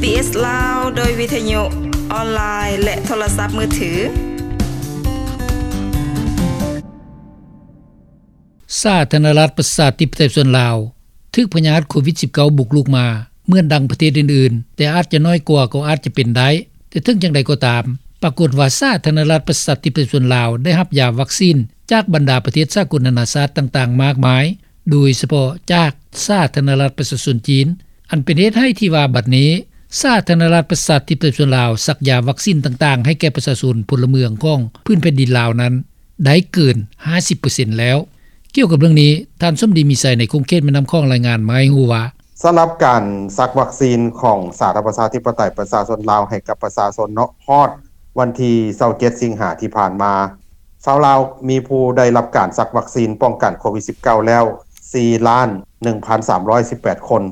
ບີບີເອສລາວ ໂດຍວິທະຍຸ ອອນລາຍ ແລະ ໂທລະສັບມືຖື. ສາທາລະນະລັດປະຊາທິປະໄຕສ່ວນລາວ ຖືກພະຍາດໂຄວິດສິບເກົ້າບຸກລຸກມາ ເໝືອນດັ່ງປະເທດອື່ນໆ, ແຕ່ອາດຈະນ້ອຍກວ່າກໍອາດຈະເປັນໄດ້. ແຕ່ເຖິງຈັ່ງໃດກໍຕາມ, ປາກົດວ່າສາທາລະນະລັດປະຊາທິປະໄຕສ່ວນລາວ ໄດ້ຮັບຢາວັກຊີນຈາກບັນດາປະເທດສາກົນນານາຊາດຕ່າງໆມາກມາຍ, ໂດຍສະເພາະຈາກສາທາລະນະລັດປະຊາຊົນຈີນ, ອັນເປັນເຫດໃຫ້ທີ່ວ່າບັດນີ້ ສາທາລະນະລັດປະຊາທິປະໄຕສ່ວນລາວ ສັກຢາວັກຊີນຕ່າງໆໃຫ້ແກ່ປະຊາຊົນພົນລະເມືອງຂອງພື້ນແຜ່ນດິນລາວນັ້ນ ໄດ້ເກີນຫ້າສິບເປີເຊັນແລ້ວ. ກ່ຽວກັບເລື່ອງນີ້, ທ່ານສົມດີ ມີໄຊ ໃນຂົງເຂດແມ່ນ້ຳຂອງ ລາຍງານມາໃຫ້ຮູ້ວ່າ, ສຳລັບການສັກວັກຊີນຂອງສາທາລະນະລັດປະຊາທິປະໄຕປະຊາຊົນລາວໃຫ້ກັບປະຊາຊົນເນາະ, ຮອດວັນທີຊາວເຈັດສິງຫາທີ່ຜ່ານມາ, ຊາວລາວມີຜູ້ໄດ້ຮັບການສັກວັກຊີນປ້ອງກັນໂຄວິດສິບເກົ້າແລ້ວ ສີ່ລ້ານໜຶ່ງພັນສາມຮ້ອຍສິບແປດຄົນ,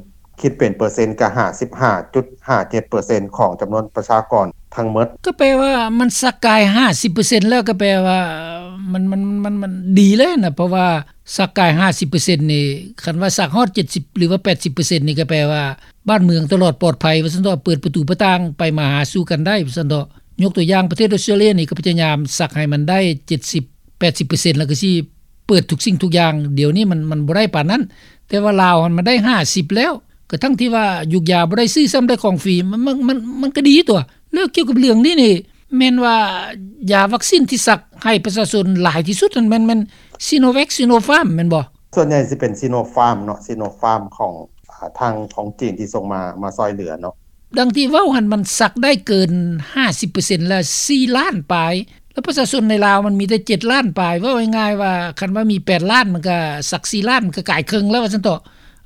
ຄິດເປັນເປີເຊັນກະຫ້າສິບຫ້າຈຸດຫ້າເຈັດເປີເຊັນຂອງຈຳນວນປະຊາກອນທັງໝົດ. ກໍແປວ່າມັນສັກກາຍຫ້າສິບເປີເຊັນແລ້ວ, ກໍແປວ່າມັນ ມັນ ມັນ ມັນດີແລ້ວນະ, ເພາະວ່າສັກກາຍຫ້າສິບເປີເຊັນນີ້, ຄັນວ່າສັກຮອດເຈັດສິບ ຫຼືວ່າແປດສິບເປີເຊັນນີ້, ກໍແປວ່າບ້ານເມືອງຕະຫຼອດປອດໄພວ່າຊັ້ນເຖາະ, ເປີດປະຕູປະຕ່າງໄປມາຫາສູ່ກັນໄດ້ວ່າຊັ້ນເຖາະ. ຍົກຕົວຢ່າງປະເທດອອສເຕຣເລຍນີ້ ກໍພະຍາຍາມສັກໃຫ້ມັນໄດ້ເຈັດສິບ ແປດສິບເປີເຊັນ ແລ້ວກໍຊິເປີດທຸກສິ່ງທຸກຢ່າງ. ດຽວນີ້ມັນ ມັນບໍ່ໄດ້ປານນັ້ນ, ແຕ່ວ່າລາວຫັ້ນມັນໄດ້ຫ້າສິບແລ້ວ, ກະທັ່ງທີ່ວ່າຢູກຢາບໍ່ໄດ້ຊື້ຊ້ຳ ໄດ້ຂອງຟຣີ, ມັນ ມັນ ມັນ ມັນກໍດີຕົວະ. ແລ້ວກ່ຽວກັບເລື່ອງນີ້ນີ້ ແມ່ນວ່າຢາວັກຊີນທີ່ສັກໃຫ້ປະຊາຊົນຫຼາຍທີ່ສຸດນັ້ນ ແມ່ນ ແມ່ນ Sinovac Sinopharm ແມ່ນບໍ່? ສ່ວນໃຫຍ່ຊິເປັນ Sinopharm ເນາະ, Sinopharm ຂອງ ອາ ທາງຂອງຈີນທີ່ສົ່ງມາ ມາຊ່ອຍເຫຼືອເນາະ. ດັ່ງທີ່ເວົ້າຫັ້ນ ມັນສັກໄດ້ເກີນຫ້າສິບເປີເຊັນ ແລະ ສີ່ລ້ານປາຍ, ແລ້ວປະຊາຊົນໃນລາວມັນມີແຕ່ເຈັດລ້ານປາຍ. ເວົ້າງ່າຍໆວ່າ ຄັນວ່າມີແປດລ້ານ ມັນກະສັກສີ່ລ້ານ ມັນກະກາຍເຄິ່ງແລ້ວວ່າຊັ້ນເຖາະ.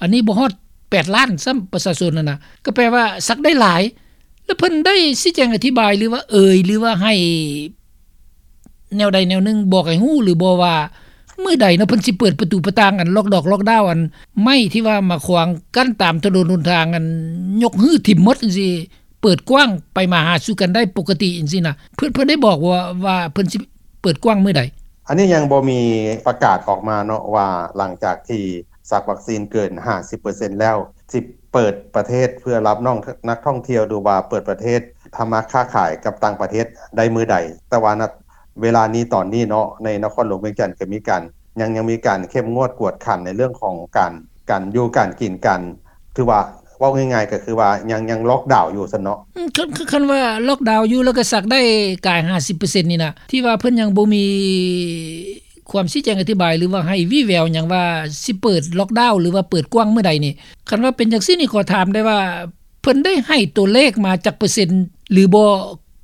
ອັນນີ້ບໍ່ຮອດແປດລ້ານຊ້ຳ ປະຊາຊົນຫັ້ນນະ, ກໍແປວ່າສັກໄດ້ຫຼາຍ. ແລ້ວເພິ່ນໄດ້ຊີ້ແຈງອະທິບາຍ ຫຼືວ່າເອີຍ ຫຼືວ່າໃຫ້ແນວໃດແນວໜຶ່ງບອກໃຫ້ຮູ້ຫຼືບໍ່ວ່າ ມື້ໃດເນາະ ເພິ່ນຊິເປີດປະຕູປະຕ່າງ ອັນລັອກດອກລັອກດາວ ອັນໄມ້ທີ່ວ່າມາຂວາງກັ້ນຕາມຖະໜົນຫົນທາງ ອັນຍົກຮື້ຖິ້ມໝົດຈັ່ງຊີ້ ເປີດກວ້າງໄປມາຫາສູ່ກັນໄດ້ປົກກະຕິຈັ່ງຊີ້ນະ, ເພິ່ນ ເພິ່ນໄດ້ບອກວ່າ ວ່າເພິ່ນຊິເປີດກວ້າງມື້ໃດ? ອັນນີ້ຍັງບໍ່ມີປະກາດອອກມາເນາະ ວ່າຫຼັງຈາກທີ່ສັກວັກຊີນເກີນຫ້າສິບເປີເຊັນແລ້ວ ຊິເປີດປະເທດເພື່ອຮັບນ້ອງ ນັກທ່ອງທ່ຽວ ຫຼືວ່າເປີດປະເທດທຳມາຄ້າຂາຍກັບຕ່າງປະເທດໄດ້ມື້ໃດ. ແຕ່ວ່າ ນະ ເວລານີ້ ຕອນນີ້ເນາະ ໃນນະຄອນຫຼວງວຽງຈັນກໍມີການ ຍັງ ຍັງມີການເຂັ້ມງວດກວດຂັນໃນເລື່ອງຂອງການ ການຢູ່ການກິນ ການ ຖືວ່າເວົ້າງ່າຍໆກໍຄືວ່າຍັງ ຍັງລັອກດາວຢູ່ຊັ້ນເນາະ. ອືມ ຄັນ ຄັນວ່າລັອກດາວຢູ່ ແລ້ວກໍສັກໄດ້ກາຍຫ້າສິບເປີເຊັນນີ້ນະ ທີ່ວ່າເພິ່ນຍັງບໍ່ມີຄວາມຊີ້ແຈງອະທິບາຍ ຫຼືວ່າໃຫ້ວີ່ແວວຫຍັງວ່າຊິເປີດລັອກດາວ ຫຼືວ່າເປີດກວ້າງມື້ໃດນີ້. ຄັນວ່າເປັນຈັ່ງຊີ້ນີ້ ຂໍຖາມໄດ້ວ່າ ເພິ່ນໄດ້ໃຫ້ຕົວເລກມາຈັກເປີເຊັນ ຫຼືບໍ່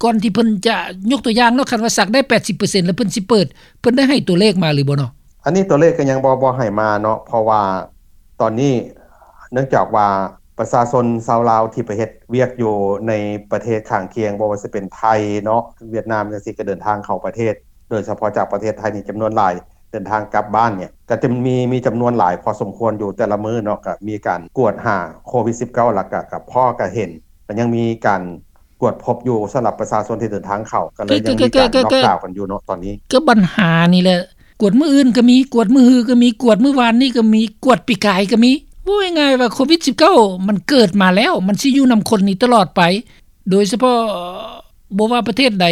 ກ່ອນທີ່ເພິ່ນຈະ ຍົກຕົວຢ່າງເນາະ ຄັນວ່າສັກໄດ້ແປດສິບເປີເຊັນ ແລ້ວເພິ່ນຊິເປີດ ເພິ່ນໄດ້ໃຫ້ຕົວເລກມາຫຼືບໍ່ເນາະ? ອັນນີ້ຕົວເລກກໍຍັງບໍ່ ບໍ່ໃຫ້ມາເນາະ ເພາະວ່າຕອນນີ້ເນື່ອງຈາກວ່າປະຊາຊົນຊາວລາວທີ່ໄປເຮັດວຽກຢູ່ໃນປະເທດຂ້າງຄຽງ ບໍ່ວ່າຊິເປັນໄທເນາະ ຫວຽດນາມຈັ່ງຊີ້ ກໍເດີນທາງເຂົ້າປະເທດ ໂດຍສະເພາະຈາກປະເທດໄທນີ້ຈຳນວນຫຼາຍ ເດີນທາງກັບບ້ານນີ້ ກໍຈະມີ ມີຈຳນວນຫຼາຍພໍສົມຄວນຢູ່ແຕ່ລະມື້ເນາະ ກໍມີການກວດຫາໂຄວິດສິບເກົ້າ ແລ້ວກໍ ກໍພໍກໍເຫັນ ກໍຍັງມີການກວດພົບຢູ່ສຳລັບປະຊາຊົນທີ່ເດີນທາງເຂົ້າ ກໍເລີຍຍັງມີການ ກໍ ກໍ ກໍ ລັອກດາວກັນຢູ່ເນາະຕອນນີ້. ກໍບັນຫານີ້ແຫຼະ ກວດມື້ອື່ນກໍມີ ກວດມື້ຮືກໍມີ ກວດມື້ວານນີ້ກໍມີ ກວດປີກາຍກໍມີ. ເວົ້າງ່າຍໆວ່າໂຄວິດສິບເກົ້າ ມັນເກີດມາແລ້ວ ມັນຊິຢູ່ນຳຄົນນີ້ຕະຫຼອດໄປ ໂດຍສະເພາະບໍ່ວ່າປະເທດໃດ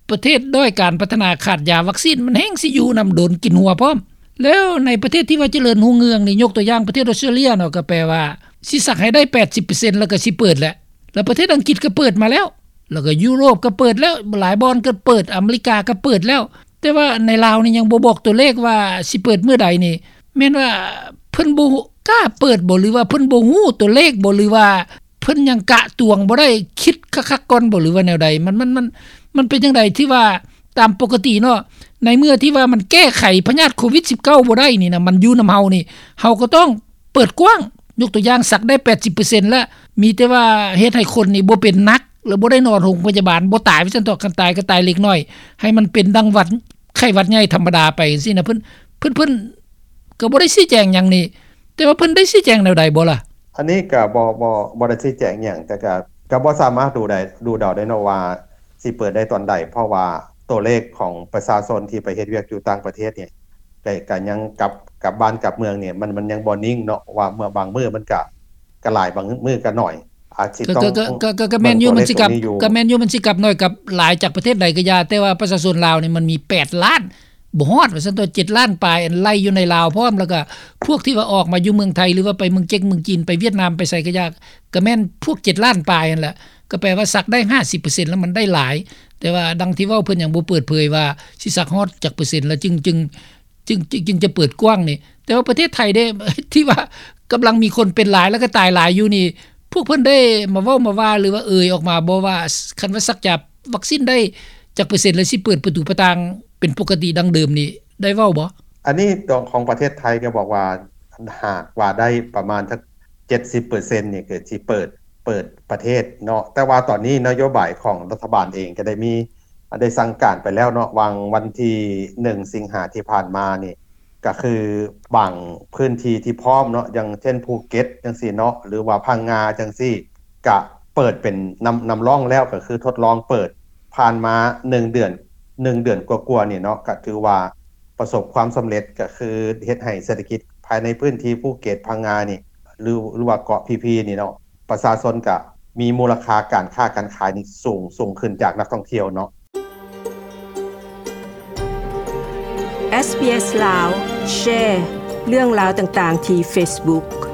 ປະເທດດ້ອຍການພັດທະນາຂາດຢາວັກຊີນ ມັນແຮ່ງຊິຢູ່ນຳດົນ ກິນຫົວພ້ອມ. ແລ້ວໃນປະເທດທີ່ວ່າຈະເລີນຮຸ່ງເຮືອງນີ້ ຍົກຕົວຢ່າງປະເທດອອສເຕຣເລຍເນາະ ກໍແປວ່າຊິສັກໃຫ້ໄດ້ແປດສິບເປີເຊັນ ແລ້ວກໍຊິເປີດແຫຼະ. ແລ້ວປະເທດອັງກິດກໍເປີດມາແລ້ວ ແລ້ວກໍຢູໂຣບກໍເປີດແລ້ວ ຫຼາຍບ່ອນກໍເປີດ ອາເມລິກາກໍເປີດແລ້ວ. ແຕ່ວ່າໃນລາວນີ້ຍັງບໍ່ບອກຕົວເລກວ່າຊິເປີດມື້ໃດນີ້ ແມ່ນວ່າເພິ່ນບໍ່ກ້າເປີດບໍ ຫຼືວ່າເພິ່ນບໍ່ຮູ້ຕົວເລກບໍ ຫຼືວ່າ ເພິ່ນຍັງກະຕວງບໍ່ໄດ້ ຄິດຄັກໆກ່ອນບໍ ຫຼືວ່າແນວໃດ? ມັນ ມັນ ມັນ ມັນເປັນຈັ່ງໃດ? ທີ່ວ່າຕາມປົກກະຕິເນາະ ໃນເມື່ອທີ່ວ່າມັນແກ້ໄຂພະຍາດໂຄວິດສິບເກົ້າບໍ່ໄດ້ນີ້ນະ ມັນຢູ່ນຳເຮົານີ້ ເຮົາກໍຕ້ອງເປີດກວ້າງ ຍົກຕົວຢ່າງສັກໄດ້ແປດສິບເປີເຊັນແລ້ວ ມີແຕ່ວ່າເຮັດໃຫ້ຄົນນີ້ບໍ່ເປັນໜັກ ແລ້ວບໍ່ໄດ້ນອນໂຮງພະຍາບານ ບໍ່ຕາຍວ່າຊັ້ນເຖາະ ຄັນຕາຍກໍຕາຍເລັກນ້ອຍ ໃຫ້ມັນເປັນດັ່ງຫວັດ ໄຂ້ຫວັດໃຫຍ່ທຳມະດາໄປຈັ່ງຊີ້ນະ ເພິ່ນ ເພິ່ນ ເພິ່ນກໍບໍ່ໄດ້ຊີ້ແຈງຫຍັງນີ້ ແຕ່ວ່າເພິ່ນໄດ້ຊີ້ແຈງແນວໃດບໍ່ລະ? ອັນນີ້ກໍບໍ່ ບໍ່ ບໍ່ໄດ້ຊີ້ແຈງຫຍັງ ແຕ່ກໍ ກໍບໍ່ສາມາດດູໄດ້ ດູເດົາໄດ້ເນາະວ່າຊິເປີດໄດ້ຕອນໃດ ເພາະວ່າຕົວເລກຂອງປະຊາຊົນທີ່ໄປເຮັດວຽກຢູ່ຕ່າງປະເທດນີ້ ກໍ ກໍຍັງກັບ ກັບບ້ານກັບເມືອງນີ້ ມັນ ມັນຍັງບໍ່ນິ່ງເນາະ ວ່າເມື່ອບາງມື້ມັນກໍ ກໍຫຼາຍ ບາງມື້ກໍໜ້ອຍ. ອາດຊິຕ້ອງ ກໍ ກໍ ກໍ ກໍແມ່ນຢູ່ ມັນຊິກັບ ກໍແມ່ນຢູ່ ມັນຊິກັບໜ້ອຍກັບຫຼາຍຈາກປະເທດໃດກໍຢ່າ ແຕ່ວ່າປະຊາຊົນລາວນີ້ມັນມີແປດລ້ານ ບໍ່ຮອດວ່າຊັ້ນຕົວະ ເຈັດລ້ານປາຍ ອັນໄລ່ຢູ່ໃນລາວພ້ອມ ແລ້ວກໍພວກທີ່ວ່າອອກມາຢູ່ເມືອງໄທ ຫຼືວ່າໄປເມືອງເຈັກ ເມືອງຈີນ ໄປຫວຽດນາມ ໄປໃສກໍຢ່າ ກໍແມ່ນພວກເຈັດລ້ານປາຍຫັ້ນແຫຼະ ກໍແປວ່າສັກໄດ້ຫ້າສິບເປີເຊັນ ແລ້ວມັນໄດ້ຫຼາຍ ແຕ່ວ່າດັ່ງທີ່ເວົ້າ ເພິ່ນຍັງບໍ່ເປີດເຜີຍວ່າຊິສັກຮອດຈັກເປີເຊັນ ແລ້ວຈຶ່ງ ຈຶ່ງ ຈຶ່ງ ຈຶ່ງ ຈຶ່ງຈະເປີດກວ້າງນີ້ ແຕ່ວ່າປະເທດໄທເດ້ ທີ່ວ່າກຳລັງມີຄົນເປັນຫຼາຍ ແລ້ວກໍຕາຍຫຼາຍຢູ່ນີ້ ພວກເພິ່ນໄດ້ມາເວົ້າມາວ່າ ຫຼືວ່າເອີ່ຍອອກມາບໍ່ວ່າ ຄັນວ່າສັກຢາວັກຊິນໄດ້ຈັກເປີເຊັນ ແລ້ວຊິເປີດປະຕູປະຕ່າງເປັນປົກກະຕິດັ່ງເດີມນີ້ ໄດ້ເວົ້າບໍ່? ອັນນີ້ຂອງປະເທດໄທກໍບອກວ່າ ຫາກວ່າໄດ້ປະມານສັກເຈັດສິບເປີເຊັນນີ້ ກໍຊິເປີດ ເປີດປະເທດເນາະ ແຕ່ວ່າຕອນນີ້ນະໂຍບາຍຂອງລັດຖະບານເອງກໍໄດ້ມີ ได้สั่งการไปแล้วเนาะ หว่างวันที่หนึ่งสิงหาที่ผ่านมานี่ ก็คือบางพื้นที่ที่พร้อมเนาะ อย่างเช่นภูเก็ตจั่งซี้เนาะ หรือว่าพังงาจั่งซี้ ก็เปิดเป็นนำ นำร่องแล้ว ก็คือทดลองเปิด ผ่านมาหนึ่งเดือน หนึ่งเดือนกว่าๆนี่เนาะ ก็ถือว่าประสบความสำเร็จ ก็คือเฮ็ดให้เศรษฐกิจภายในพื้นที่ภูเก็ต พังงานี่ หรือ หรือว่าเกาะพีพีนี่เนาะ ປະຊາຊົນກະມີມູນລະຄ່າການຄ້າການຂາຍນີ້ສູງ ສູງຂຶ້ນຈາກນັກທ່ອງທ່ຽວເນາະ. SBS ລາວ ແຊ ເລື່ອງລາວຕ່າງໆທີ່ Facebook.